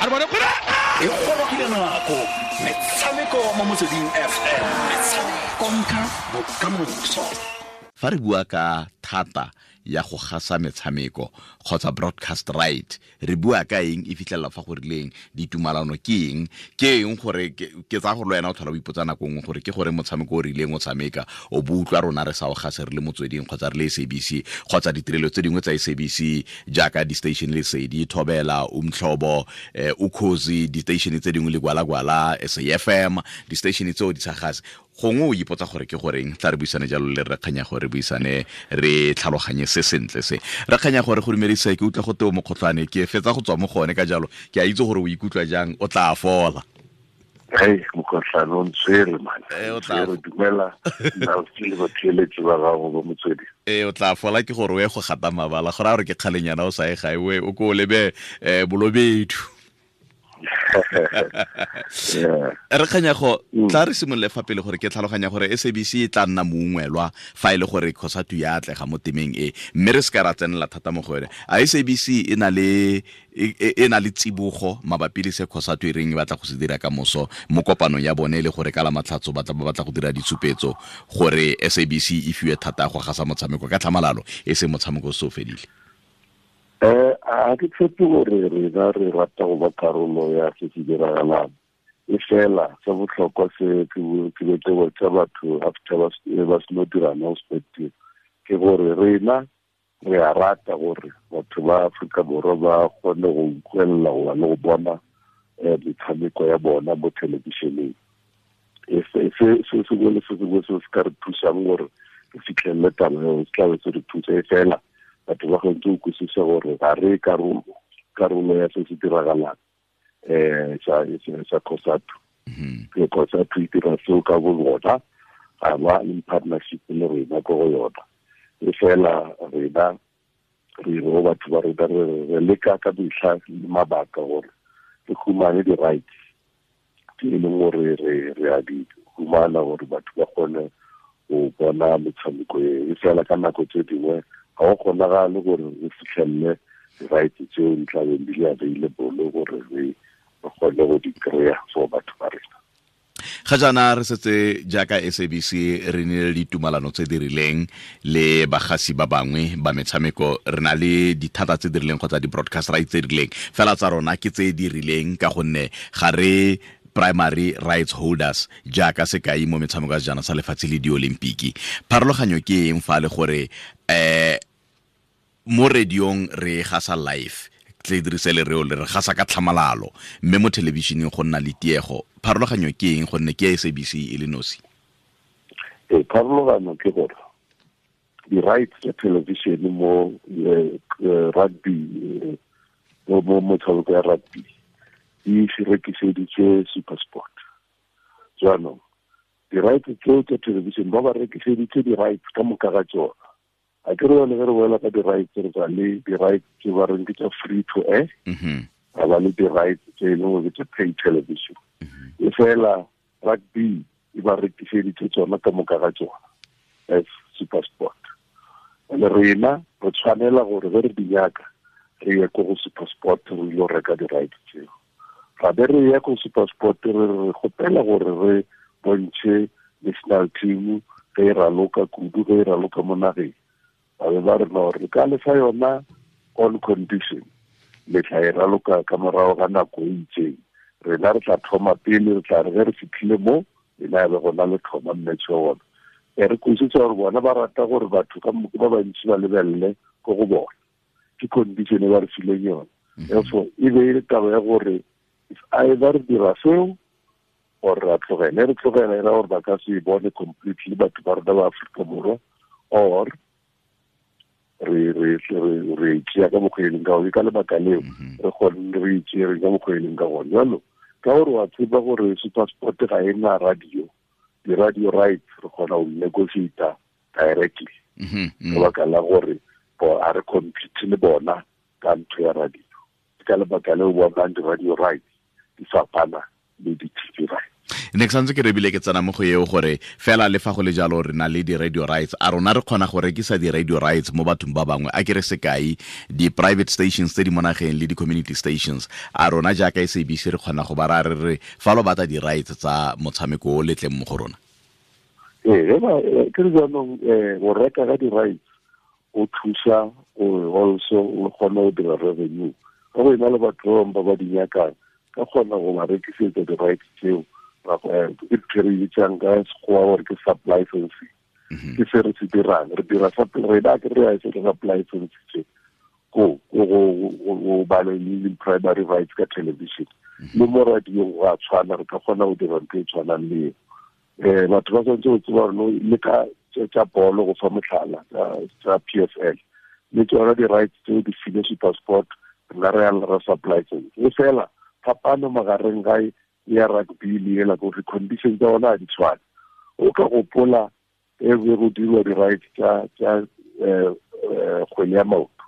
A re bone gore E gorogile nako metshameko mo Motsweding FM, konka bokamoso. Fa re bua ka thata ya go gasa metshameko kgotsa broadcast right, re bua ka eng? E fitlhelela fa go rileng ditumalano ke eng? Ke eng gore ke tsaya gore le wena o tlhola o ipotsa nako nngwe gore ke gore motshameko o rileng o tshameka o bo utlwa rona re sa o gase re le Motsweding kgotsa re le SABC kgotsa ditirelo tse dingwe tsa SABC jaaka di-station Lesedi, Thobela, Umhlobo, Ukhozi, di-station tse dingwe le Gwalagwala, SAFM, di-station tseo di sa gase. Gongwe o ipotsa gore ke goreng. Tla re buisane jalo le re kganya gore buisane re tlhaloganye se sentle se. Re kganya gore go dumedisa, ke utlwa go teo mokgotlhwane, ke fetsa go tswa mo gone, ka jalo ke a itse gore o ikutlwa jang. O tla fola. Hey, mokgotlhwane o ntshwere, man. O tla Re dumela nna le batheeletsi ba gago ba Motswedi. Ee, o tla fola. Ke gore o ye go gata mabala gore a gore ke kgalenyana o sa ye gae, o ko o lebe Bolobedu. Re kganyago, tla re simolole fa pele gore ke tlhaloganya gore SABC e tla nna mongwelwa fa e le gore COSATU ya atlega mo temeng e, mme re se ka ra tsenela thata mo go yone. A SABC e na le tsibogo mabapi le se COSATU e reng e batla go se dira ka moso mo kopanong ya bone, e le gore ka la Matlhatso batla ba batla go dira ditshupetso gore SABC e fiwe thata go gasa motshameko ka tlhamalalo, e se motshameko o se o fedile? A ke tshepe gore rena re rata go ba karolo ya se se diragalang, e fela se botlhokwa se ke be ke botsa batho after ba seno dira announcement ke gore rena re a rata gore batho ba Aforika Borwa ba kgone go utlwelela goba le go bona metshameko ya bona mo thelebišeneng. Se sengwe le se sengwe se se ka re thusang gore re fitlhelele taba eo se tlabe se re thusa, e fela batho ba kgontse go kwisisa gore ga re karolo ya se se diragalang sa COSATU. Ke COSATU e dira seo ka bo bona, ga ba in partnership le rena ko go yona. E fela rena re re go batho ba rena re leka ka metlha le mabaka gore re humane di-rights tse e leng gore re a di humana gore batho ba kgone go bona metshameko e. E fela ka nako tse dingwe ga go kgonagale gore o fitlhelele di-rights tseo di tlabeng di le available gore re kgone go di kry-a for batho ba rena. Ga jaana re setse jaaka SABC re nile le ditumalano tse di rileng le bagasi ba bangwe ba metshameko. Re na le dithata tse di rileng kgotsa di-broadcast rights tse di rileng, fela tsa rona ke tse di rileng ka gonne ga re primary rights holders, jaaka sekai mo metshameko ya sejana sa lefatshe le diolimpiki. Pharologanyo ke eng fa le gore mo radiong re gasa live, tle dirise lereo le re gasa ka tlhamalalo, mme mo thelebišeneng go nna le tiego? Pharologanyo ke eng, gonne ke SABC e le nosi? Ee, pharologano ke gore di-rights tsa television mo rugby, mo motshameko ya rugby, di rekiseditswe SuperSport. Jaanong di-rights tseo tsa television ba rekiseditse di-rights ka moka ga tsona. A ke re yone ge re boela ka di-rights, re tsa le di-rights tse ba reng ke tsa free to air, ga ba le di-rights tse e leng gore ke tsa pay television. E fela rugby e ba rekiseditse tsona ka moka ga tsona as SuperSport, and rena re tshwanela gore ge re di nyaka re ye ko go SuperSport, re ile reka di-rights tseo. Ra be re ya ko SuperSport, re kgopela gore re bontšhe national team ge e raloka, kudu ge e raloka mo nageng. Ba be ba re no, re ka lefa yona on condition le tla e raloka ka morago ga nako e itseng. Rena re tla thoma pele, re tla re ge re fitlhile mo lena ya be gona le thoma match wa bona. E re kwisitse gore bona ba rata gore batho ka ba bantsi ba lebelele ko go bona. Ke condition e ba re fileng yona. Therefore e be e le taba ya gore if either re dira seo or re a tlogela. E re tlogela e ra gore ba ka se e bone completely batho ba rona ba Aforika Borwa, or re tšea ka mokgwa e leng ka gone. Ka lebaka leo re kgone re itšere ka mokgwa e leng ka gone jalo, ka gore wa tseba gore SuperSport ga e na radio, di-radio rights re kgona go negotiata directly, ka baka la gore a re compete le bona ka ntho ya radio. Ke ka lebaka leo bonang di-radio rights di fapana le di-TV rights. Ne ke santse ke rebile ke tsena mo go eo gore fela le fa go le jalo re na le di-radio rights, a rona re kgona go rekisa di-radio rights mo bathong ba bangwe? A ke re sekai, di-private stations tse di mo nageng le di-community stations, a rona jaaka SABC re kgona go ba ra re re fa lo batla di-rights tsa motshameko o letleng mo go rona? Ee, ke re jaanong go reka ka di-rights o thusa gore also o kgone go dira revenue ka go ena le batho ba bangwe ba ba di nyakang, ka kgona go ba rekisetsa di-rights tseo. Ke ntho e re bitsang ka Sekgowa gore ke sub-licensing. Ke se re se dirang, re dira rena ke re se re sub-license tse ko go ba le primary rights ka television le mo radiong go a tshwana, re ka kgona go dira ntho e tshwanang le eo. Batho ba tshwanetse go tseba gore le ka tsa bolo, go fa motlhala tsa PSL le tsona di-rights tseo di file SuperSport, rena re ya ra sub-license. E fela phapano magareng ga ya rugby le ela gore condition tsa ona ga di tshwane. O ka gopola e be go dirwa di-rights tsa kgwele ya maoto,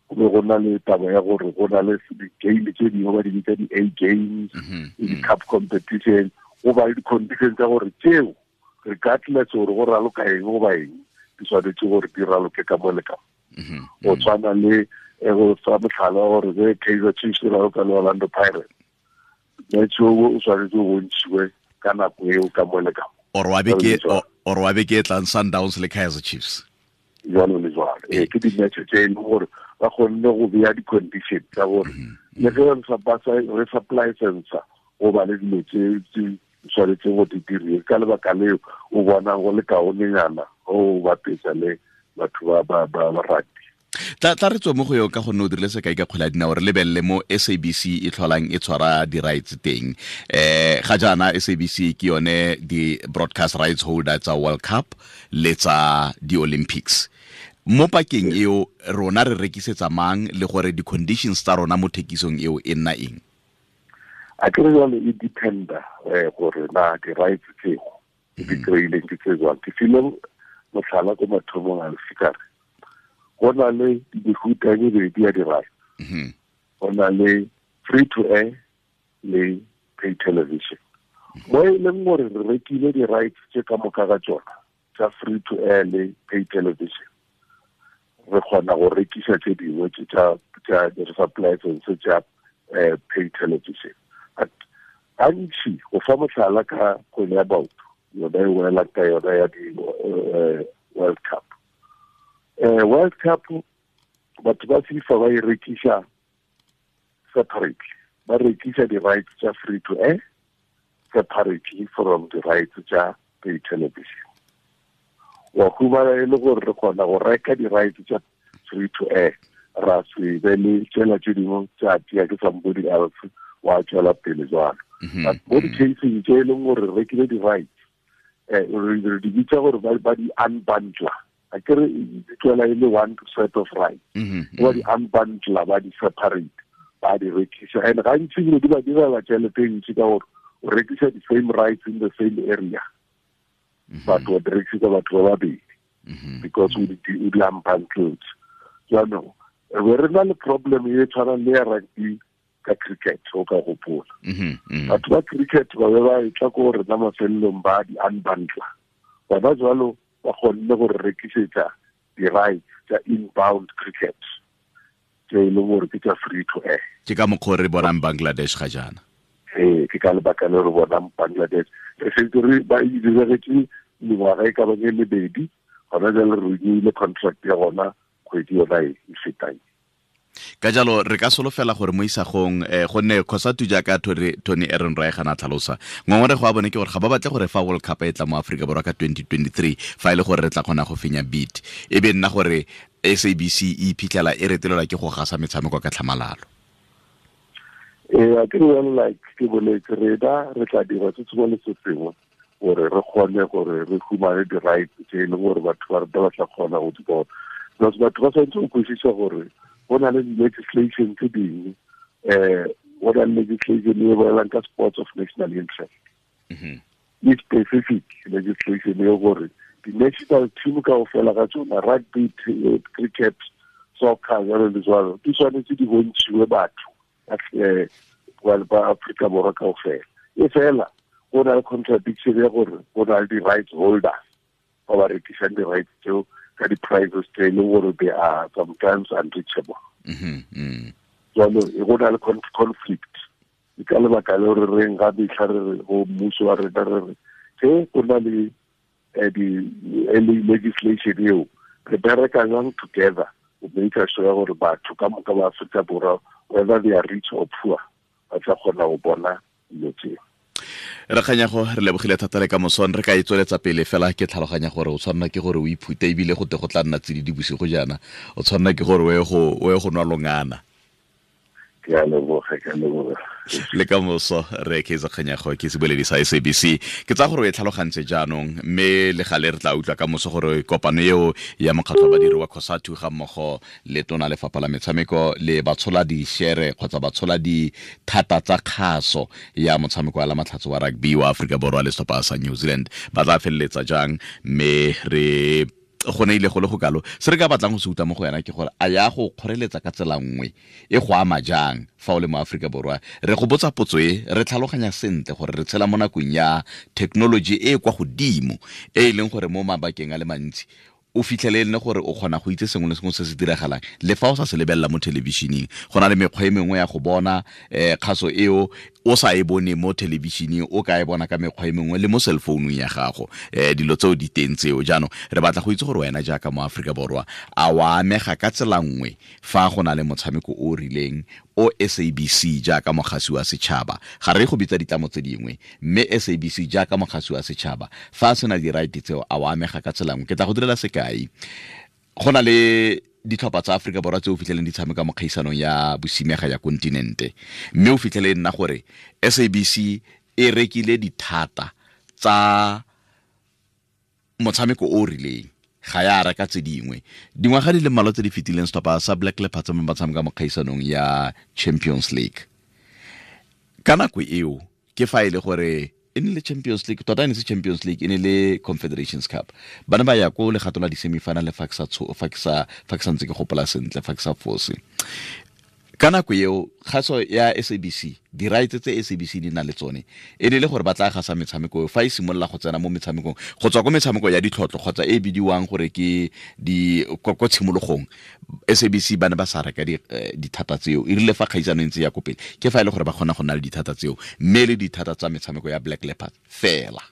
go be go na le taba ya gore go na le di-game tse dingwe ba di bitsa di-A games le di-cup competition, go ba le di-condition tsa gore tseo regardless gore go raloka eng goba eng di tshwanetse gore di raloke ka mo le ka mo. Go tshwana le go fa motlhala gore ge Kaizer Chiefs e raloka le Orlando Pirates, match o o tshwanetse o bontšhiwe ka nako eo ka mo le ka mo. Or wa beke e tlang Sundowns le Kaizer Chiefs, jalo le jalo. Ee, ke di-match tse e leng gore ba kgonne go beya di-condition tsa gore le ge re supply sensor go ba le dilo tse di tshwanetseng go di diriwe. Ka lebaka leo o bonang go le kaonenyana o bapetsa le batho ba rugby. Tla re tswe mo go eo ka gonne o dirile sekai ka kgwele ya dinao, re lebelele mo SABC e tlholang e tshwara di-rights teng. Ga jaana SABC ke yone di-broadcast rights holder tsa World Cup le tsa di-Olympics. Mo pakeng eo rona re rekisetsa mang le gore di-conditions tsa rona mo thekisong eo e nna eng? A ke re jalo e dependa gore na di-rights tseo di kry-ileng ke tse jwang. Ke file motlhala ko mathomong a lefikare, go na le mefuta e mebedi ya di-rights. Go na le free to air le pay television. Mo e leng gore re rekile di-rights tse ka moka ga tsona tsa free to air le pay television, re kgona go rekisa tse dingwe tsa di-sub-license tsa pay television. But gantsi, go fa motlhala ka kgwele ya maoto yona e welang ka yona ya di-World Cup. World Cup batho ba FIFA ba e rekisa separately, ba rekisa di-rights tsa free to air separately from the rights tsa pay television. Wa humana e le gore re kgona go reka di-rights tsa free to air, ra se be le tsela tse dingwe tsa tia ke somebody else wa tswela pele jwalo. But mo di-caseng tse e leng gore re rekile di-rights, re di bitsa gore ba di unbundler. A ke re di tswela e le one set of rights, ba di unbundler, ba di separate, ba di rekisa. And gantsi dilo di ba direla tšhelete e ntsi ka gore o rekisa the same rights in the same area, but o di rekisa batho ba babedi because o di unbundled. Jaanong re be re na le problem e tshwanang le ya rugby ka cricket, o ka gopola. Batho ba cricket ba be ba e tla ko rena mafelelong ba di unbundler. Bona jwalo ba kgonne go re rekisetsa di-rights tsa inbound cricket tse e leng gore ke tsa free to air. Ke ka mokgwa re bonang Bangladesh ga jaana. Ee, ke ka lebaka le re bonang Bangladesh. Re setse re ba e diregetse mengwaga e ka bang e lebedi, gona jale re renewile contract ya gona kgwedi yona e fetang. Ka jalo re ka solofela gore mo isagong gonne COSATU jaaka Tony Ehrenreich a na tlhalosa, ngongorego ya bone ke gore ga ba batle gore fa World Cup e tla mo Aforika Borwa ka 2023, fa e le gore re tla kgona go fenya bid, e be nna gore SABC e iphitlhela e retelelwa ke go gasa metshameko ka tlhamalalo. Ee, a ke re jalo, like ke boletse, rena re tla dira se sengwe le se sengwe gore re kgone gore re humane di-rights tse e leng gore batho ba rata ba tla kgona go di bona. Because batho ba tshwanetse go kwešiša gore go na le di-legislation tse dingwe, go na le legislation e bolelang ka sports of national interest. E specific legislation e gore di-national team kaofela ga tsona, rugby, cricket, soccer, jalo le jalo, di tshwanetse di bontšhiwe batho ba Afrika Borwa kaofela. E fela Go na le contradiction ya gore go na le di-rights holders ba ba rekisang di-rights tseo ka di-prices tse e leng gore they are sometimes unreachable. Jalo go na le conflict. Ke ka lebaka le re reng ga metlha re re go mmuso wa rena re re ge go na le di-legislation eo re bereka jang together go make sure ya gore batho ka moka ba Afrika Borwa, whether they are rich or poor, ba tla kgona go bona dilo tseo. Re Kganyago, re lebogile thata le ka mosong re ka e tsweletsa pele fela. Ke tlhaloganya gore o tshwanela ke gore o iphute, ebile go te go tla nna tsididi bosigo jaana, o tshwanela ke gore o ye go nwa longana. Ke a leboga, ke a leboga. Le ka moso. Re Kaizer Kganyago ke seboledi sa SABC. Ke tsaya gore o e tlhalogantse jaanong, mme le gale re tla utlwa ka moso gore kopano eo ya mokgatlho wa badiri wa COSATU ga mmogo le tona lefapha la metshameko le batshola di-share kgotsa batshola dithata tsa kgaso ya motshameko wa la matlhatso wa rugby wa Aforika Borwa le setlhopha sa New Zealand ba tla feleletsa jang. Mme re go ne ile go le go kalo, se re ka batlang go se utlwa mo go yena ke gore a ya go kgoreletsa ka tsela nngwe, e go ama jang fa o le mo Aforika Borwa. Re go botsa potso e re tlhaloganya sentle gore re tshela mo nakong ya thekenoloji e e kwa godimo, e e leng gore mo mabakeng a le mantsi o fitlhele e le gore o kgona go itse sengwe le sengwe se se diragalang le fa o sa se lebelela mo thelebišeneng. Go na le mekgwa e mengwe ya go bona kgaso eo o sa e bone mo thelebišeneng, o ka e bona ka mekgwa e mengwe le mo cell phone ya gago. Dilo tseo di teng tseo. Jaanong re batla go itse gore wena jaaka mo Aforika Borwa a wa amega ka tsela nngwe fa go na le motshameko o o rileng o SABC jaaka mogasi wa setšhaba, ga re go bitsa ditlamo tse dingwe, mme SABC jaaka mogasi wa setšhaba fa a sena di-right tseo, a wa amega ka tsela nngwe. Ke tla go direla sekai. Go na le ditlhopha tsa Aforika Borwa tse o fitlheleng di tshameka mo kgaisanong ya bosimega ya kontinente, mme o fitlhele e nna gore SABC e rekile dithata tsa motshameko o o rileng, ga ya reka tse dingwe. Dingwaga di le mmalwa tse di fetileng, setlhopha sa Black Leopards mo ba tshameka mo kgaisanong ya Champions League ka nako eo, ke fa e le gore e ne le Champions League, tota e ne se Champions League, e ne le Confederations Cup, ba ne ba ya ko legato la di-semifinal fa ke sa fa ke sa fa ke santse ke gopola sentle, fa ke sa fose. Ka nako eo kgaso ya SABC, di-rights tse SABC di nang le tsone e ne le gore ba tla gasa metshameko fa e simolola go tsena mo metshamekong, go tswa ko metshameko ya ditlhotlho kgotsa e bidiwang gore ke di ko tshimologong. SABC ba ne ba sa reka dithata tseo. E rile fa kgaisano e ntse ya ko pele, ke fa e le gore ba kgona go nna le dithata tseo, mme le dithata tsa metshameko ya Black Leopards fela.